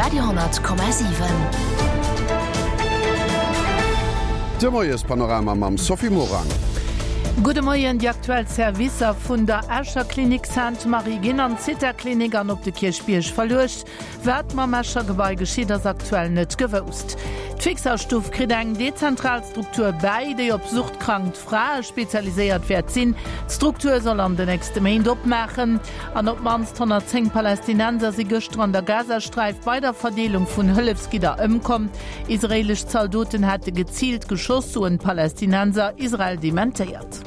Radio 10,7. De Moiespanorama mam Sophie Morang. Gudde Moien, Déi aktuell Servicer vun der Escher Klinik Sainte-Marie ginn an d'Zithaklinik an op de Kierchbierg verluecht. Wat mam Escher Gebai geschitt, ass aktuell net gewousst. D'Fixerstuff kritt eng dezentral Struktur bäi, déi op suchtkrank Frae spezialiséiert wäert sinn. D'Struktur soll an de nächste Méint opmaachen. An op d'mannst 110 Palästinenser si gëschter an der Gazasträif bei der Verdeelung vun Hëllefsgidder ëmkomm. Israeelesch Zaldoten hätte geziilt geschoss, soen d'Palästinenser. Israel dementéiert.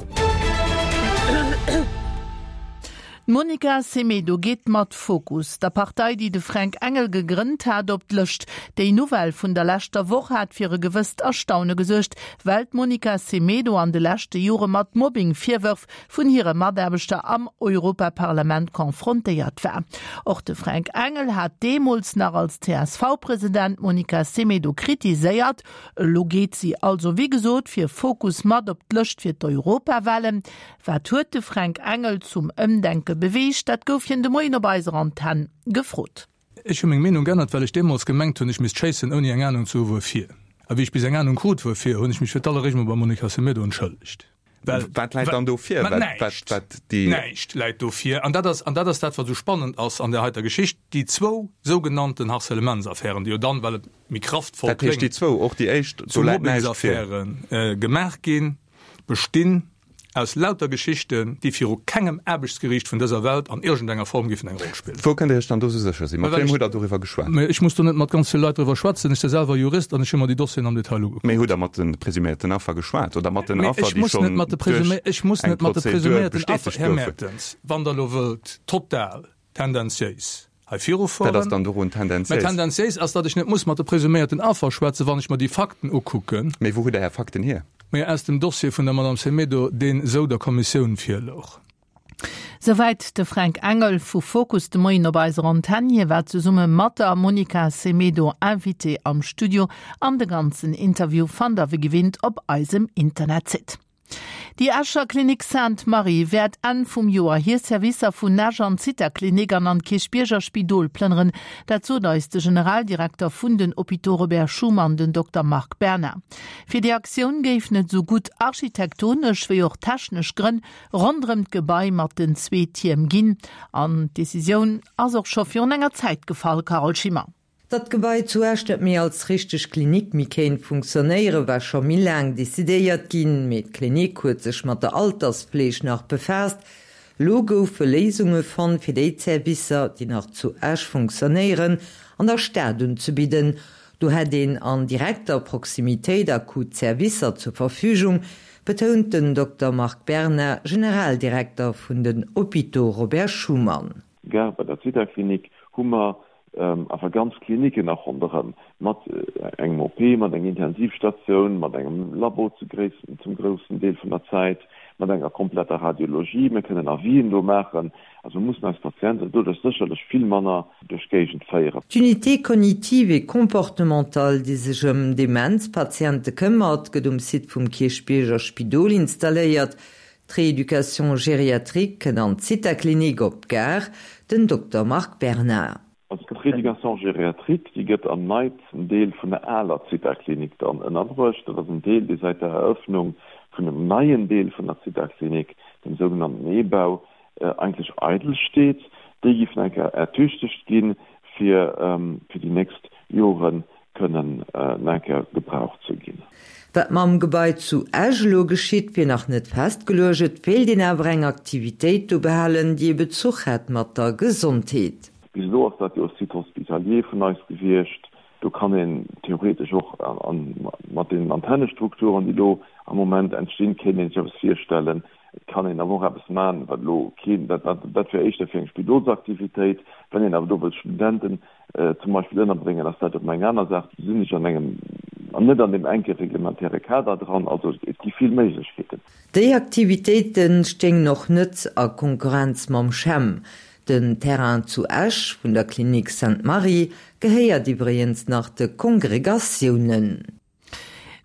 D'Monica Semedo geet mat Fokus, der Partei, déi de Fränk Engel gegrënnt hat, op d'Lëscht. Déi Nouvelle vun der leschter Woch hat fir e gewësst Erstaune gesuergt, well d'Monica Semedo an de leschte Jore mat Mobbing-Virwërf vun hire Mataarbechter am Europaparlament confrontéiert war. Och de Fränk Engel hat deemools nach als CSV-President d'Monica Semedo kritiséiert. Elo geet si also wéi gesot fir Fokus mat op d'Lëscht fir d'Europawahlen. Wat huet de Fränk Engel zum Ëmdenke beweegt? Dat gouf hien de Moien op eiser Antenn gefrot. Ech hu meng Meenung geännert, well ech deemools gemengt hunn, ech misst schéissen, ouni eng Anung ze hu wuerfir. A wéi ech bis eng Anung krut wuerfir, hunn ech mech fir d'alleréischt mol beim Monica Semedo entschëllegt. Well, Wat läit dann do vir? Mä näischt, näischt läit do vir. An dat ass, an dat ass dat, wat esou spannend ass an där heiter Geschicht, déi zwou sougenannten Harcèlementsaffären, déi jo dann, well et méi kraftvoll kléngt, Dat heescht déi zwou, och déi éischt, do läit näischt vir. Zu Mobbingsaffäre gemaach ginn, bestinn aus lauter Geschichten, déi viru kengem Aarbechtsgeriicht vun dëser Welt an iergendenger Form géifen eng Roll spillen. Wou kënnt Dir Iech dann do sou sécher sinn? Mat wiem hutt Der doriwwer geschwat? Mä ech muss do net mat ganz ville Leit driwwer schwätzen. Ech si selwer Jurist an ech hu mer déi Dossieren am Detail ugekuckt. Mee hutt Der mat de presuméierten Affer geschwat oder mat den Affer, déi schonn duerch eng Prozedur bestätegt goufen? Här Mertens, wann Der elo wëllt total tendenziéis hei virufueren. Wat ass dann dorun tendenziéis? Mä tendenziéis ass, datt ech net muss mat de presuméierten Affer schwätzen, wann ech mer déi Fakten ukucken. Mee wou hutt Der Är Fakten hier? Mä aus dem Dossier vun der Madame Semedo, deen esou der Kommissioun virlouch. Souwäit de Fränk Engel vu Fokus de Moien op eiser Antenn. Hie war zesumme mat der Monica Semedo Invitée am Studio an de ganzen Interview fannt der wéi gewinnt op eisem Internetsite. Déi Escher Klinik Sainte Marie wäert Enn vum Joer hir Servicer vun Esch an d'Zithaklinik an an d'Kierchbierger Spidol plënneren. Dat sot eis de Generaldirekter vun den Hôpitaux Robert Schuman, den Dokter Marc Berna. Fir déi Aktioun géifen et esou gutt architektonesch wéi och technesch Grënn ronderëm d'Gebai mat den zwee Tierm ginn. An d'Decisioun ass och scho virun enger Zäit gefall, Carole Schimmer. Datt d'Gebai zu Esch net méi als richteg Klinik méi kéint funktionéieren, war scho méi laang decidéiert ginn. Mee d'Klinik huet sech mat der Altersfleeg nach befaasst. Elo goufe Léisunge fonnt, fir déi Zerwisser, déi nach zu Esch funktionéieren, an der Stad unzebidden. Do hätt een an direkter Proximitéit akut Zerwisser zur Verfügung, betount den Dokter Marc Berna, Generaldirekter vun den Hôpitaux Robert Schuman. Gare bei der Zithaklinik hu mer awer ganz Kliniken nach ronderëm, mat engem OP, mat enger Intensivstatioun, mat engem Labo zu zum groussen Deel vun der Zäit, mat enger kompletter Radiologie. Mir kënnen Avisen do maachen. Also mir mussen eis Patienten doduerch sécherlech vill manner duerch d'Géigend féieren. D'Unité cognitive et comportementale, déi sech ëm Demenzpatiente këmmert, gëtt um Site vum Kierchbierger Spidol installéiert. D'Rééducation gériatrique kënnt an d'Zithaklinik op d'Gare, den Dokter Marc Bernard. Also d'Rééducation gériatrique, déi gëtt am neitsten Deel vun der aler Zithaklinik dann ënnerbruecht. Dat ass en Deel, dee säit der Eröffnung vun dem neien Deel vun der Zithaklinik, dem sougenannten E-Bau, eigentlech eidel steet. Déi géif nach eng Kéier ertüchtegt ginn, fir fir déi nächst Joren kënnen nach eng Kéier gebraucht ze ginn. Wat mam Gebai zu Esch elo geschitt, wier nach net festgeluecht. Et wéilt een awer eng Aktivitéit do behalen, déi e Bezuch hätt mat der Gesondheet. Bis elo ass dat jo e Site hospitalier vun eis gewiescht. Do kann een theoretesch och mat deenen Antennestrukturen, déi do am Moment entstinn, kéint ee sech eppes virstellen. Et kann een awer och eppes maachen, wat elo keen, dat dat wär éischter fir eng Spidolsaktivitéit. Wann een awer do wëllt Studenten zum Beispill ënnerbréngen, ass dat erëm eng aner Saach. Do sinn ech an engem, an net an deem enke reglementäre Kader dran. Also et gi vill Méiglechkeeten. Déi Aktivitéite stéingen och net a Konkurrenz mam CHEM. Den Terrain zu Esch vun der Klinik Sainte-Marie gehéiert iwwregens nach de Kongregatiounen.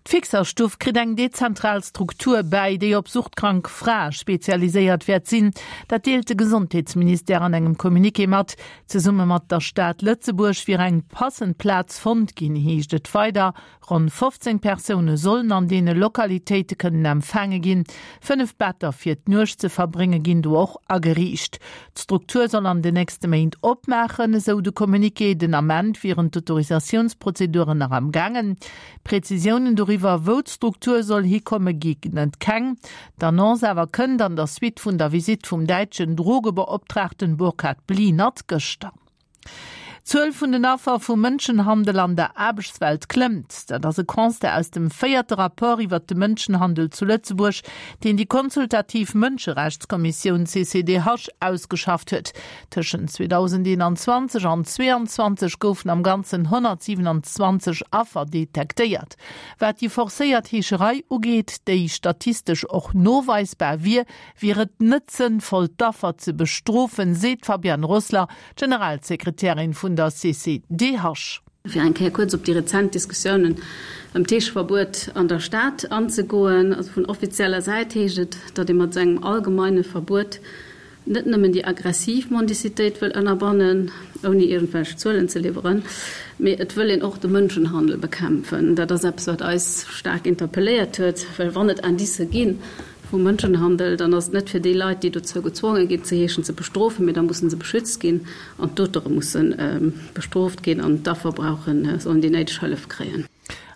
D'Fixerstuff kritt eng dezentral Struktur bäi, déi op suchtkrank Frae spezialiséiert wäert sinn. Dat deelt de Gesondheetsministère an engem Communiqué mat. Zesumme mat der Stad Lëtzebuerg wier eng passend Plaz fonnt ginn, heescht et weider. Ronn 15 Persoune sollen an deene Lokalitéite kënnen empfaange ginn. 5 Better fir d'Nuecht ze verbrénge ginn do och ageriicht. D'Struktur soll an den nächste Méint opmaachen, esou de Communiqué. Den Ament wieren d'Autorisatiounsprozeduren nach am gaangen. Prezisiounen doriwwer, wou d'Struktur soll hikomme ginn et keng. D'Annonce awer kënnt an der Suite vun der Visitt vum däitschen Drogebeoptraagten Burkhard Blinert gëschter. D'Zuel vun den Affer vu Mënschenhandel an der Aarbechtswelt klëmmt. Dat ass e Constat aus dem véierte Rapport iwwert de Mënschenhandel zu Lëtzebuerg, deen déi consultativ Mënscherechtskommissioun CCDH ausgeschafft huet. Tëschent 2021 an 2022 goufen am Ganzen 127 Affer detektéiert. Wat déi forcéiert Heescherei ugeet, déi statistesch och noweisbar wier, wier et net sënnvoll d'Affer ze bestrofen, seet d'Fabienne Rossler, Generalsekretärin vun der CCDH. Fir eng Kéier kuerz op déi rezent Diskussiounen ëm d'Heescheverbuet an der Stad anzegoen, also vun offizieller Säit heescht et, datt ee mat esou engem allgemeine Verbuet net nëmmen déi aggressiv Mendicitéit wëll ënnerbannen, ouni iergendwelch Zuelen ze liwweren, mee et wëll een och de Mënschenhandel bekämpfen. Dat ass eppes, wat eis staark interpelléiert huet, well wann et Indicë gi vu Mënschenhandel, dann ass et net fir déi Leit, déi dozou gezwonge ginn ze heeschen, ze bestrofen, mee da musse se beschützt ginn an d'Auteure musse bestrooft ginn an d'Affer brauchen, sollen déi néideg Hëllef kréien.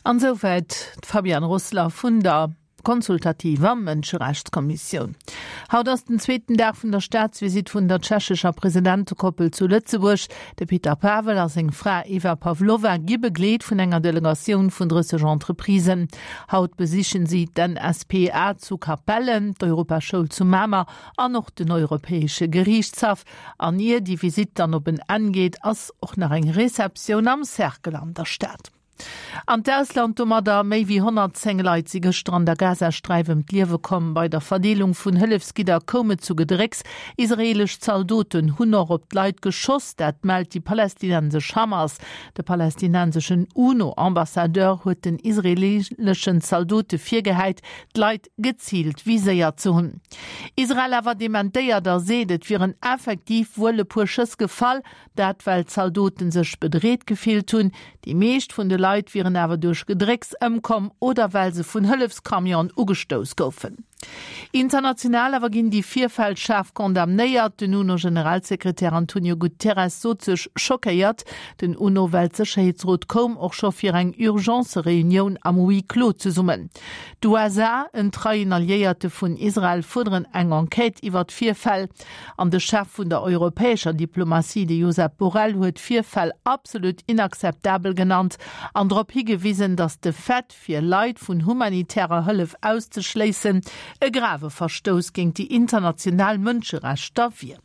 An esouwäit d'Fabienne Rossler vun der. Konsultativer Mënscherechtskommissioun. Haut ass den zweeten Dag vun der Staatsvisitt vun der tschechescher Presidentekoppel zu Lëtzebuerg. De Peter Pavel a seng Fra Eva Pavlova gi begleet vun enger Delegatioun vun 30 Entreprisen. Haut besichen si d'NSPA zu Capellen, d'Europaschoul zu Mamer an och den Europäesche Geriichtshaff. An ier déi Visitt dann op en Enn geet, ass och nach eng Receptioun am Cercle an der Stad. An d'Ausland domadder, Méi wéi 110 Leit si gëschter an der Gazasträif ëm d'Liewe komm. Bei der Verdeelung vun Hëllefsgidder koum et zu Gedrécks. Israeelesch Zaldoten hunn och op d'Leit geschoss, dat mellt déi palästinensesch Hamas. De palästinenseschen UNO-Ambassadeur huet den israeeleschen Zaldote virgehäit, d'Leit geziilt viséiert ze hunn. Israel awer dementéiert a seet, et wieren effektiv wuel e puer Schëss gefall, Dat well d'Zaldoten sech bedreet gefillt hunn. Déi meescht vun de Leit wieren awer duerch Gedrécks ëmkomm oder well se vun Hëllefscamionen ugestouss goufen. International awer ginn déi Virfäll schaarf condamnéiert. Den UNO-Generalsekretär Antonio Guterres sot sech schockéiert. Den UNO-Weltsécherheetsrot koum och scho fir eng Urgence-Reunioun am Huis clos zesummen. D'USA, en treien Alliéierte vun Israel, fuerderen eng Enquête iwwer d'Virfäll. An de Chef vun der europäescher Diplomatie, de Josep Borrell, huet d'Virfäll absolut inakzeptabel genannt an drop higewisen, datt de Fait, fir Leit vun humanitärer Hëllef auszeschléissen, e grave Verstouss géint déi international Mënscherechter wier.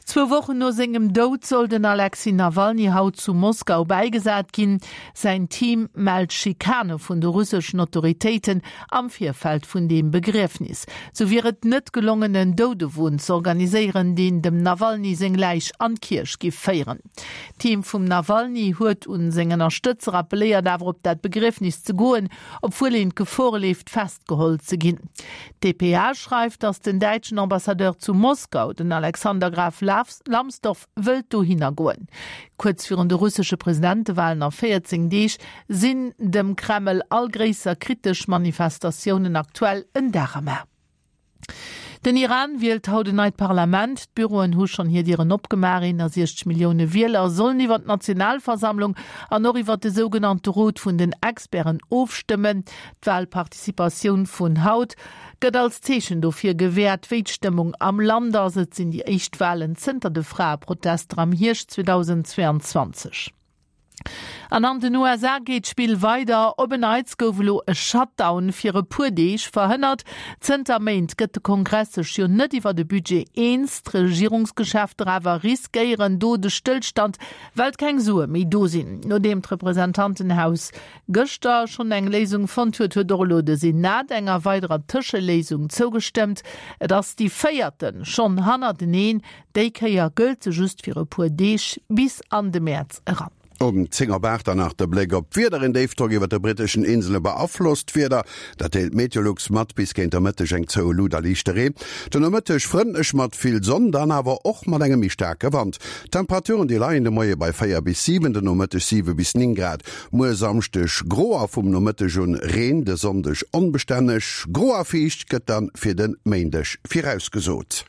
Zwou Wochen no sengem Doud soll den Alexej Nawalny haut zu Moskau bäigesat ginn. Säin Team mellt Schikane vun de russeschen Autoritéiten am Virfeld vun deem Begriefnis. Sou wier et net gelongen en Doudewon z'organiséieren, deen dem Nawalny seng Läich an d'Kierch giff féieren. D'Team vum Nawalny huet un seng Ënnerstëtzer appelléiert awer op dat Begriefnis ze goen, obwuel een d'Gefor leeft festgeholl ze ginn. D'dpa schreift, datt den däitschen Ambassadeur zu Moskau, den Alexander Graf Lambsdorff, wëllt dohinner goen. Kuerz virun de russesche Presidentewalen a 14 Deeg sinn dem Kreml all gréisser kritesch Manifestatiounen aktuell en Dar am A. Den Iran wielt haut en neit Parlament. D'Büroen hu schonn hir Dieren opgemaach. 61 Millioune Wieler sollen iwwer d'Nationalversammlung an och iwwer de sougenannte Rot vun den Experten ofstëmmen. D'Walparticipatioun vun haut gëtt als Zeechen dofir gewäert, wéi d'Stëmmung am Land ass. Et sinn déi éischt Walen zënter de Fraeprotester am Hierscht 2022. An an den USA geet d'Spill weider. Op en Neits gouf elo e Shutdown fir e puer Deeg verhënnert. Zënter Méint gëtt de Kongress sech jo net iwwer e Budget eens. D'Regierungsgeschäfter awer riskéieren do de Stëllstand, well keng Sue méi do sinn. Nodeem d'Representantenhaus gëschter schonn eng Léisung fonnt huet, huet och elo de Senat enger weiderer Tëscheléisung zougestëmmt. Et ass déi véierte schonn hannerteneen. Déi Kéier gëllt se just fir e puer Deeg bis an de Mäerz eran. Um 10 op 8 dann nach de Bléck op d'Wieder, Een Déifdrock iwwert de britteschen Insele beaflosst d'Wieder, dat deelt Meteolux mat. Bis géint der Mëtteg eng zoue Lut a liichte Reen. Den Nomëtteg frëndlech mat vill Sonn, dann awer och mat engem méi staarke Wand. D'Temperaturen déi leien de Moie bei 4 bis 7, den Nomëtteg 7 bis 9 Grad. Muer Samschdeg gro a vum Nomëtteg un Reen, de Sonndeg onbestänneg gro a fiicht gëtt dann fir de Méindeg virausgesot.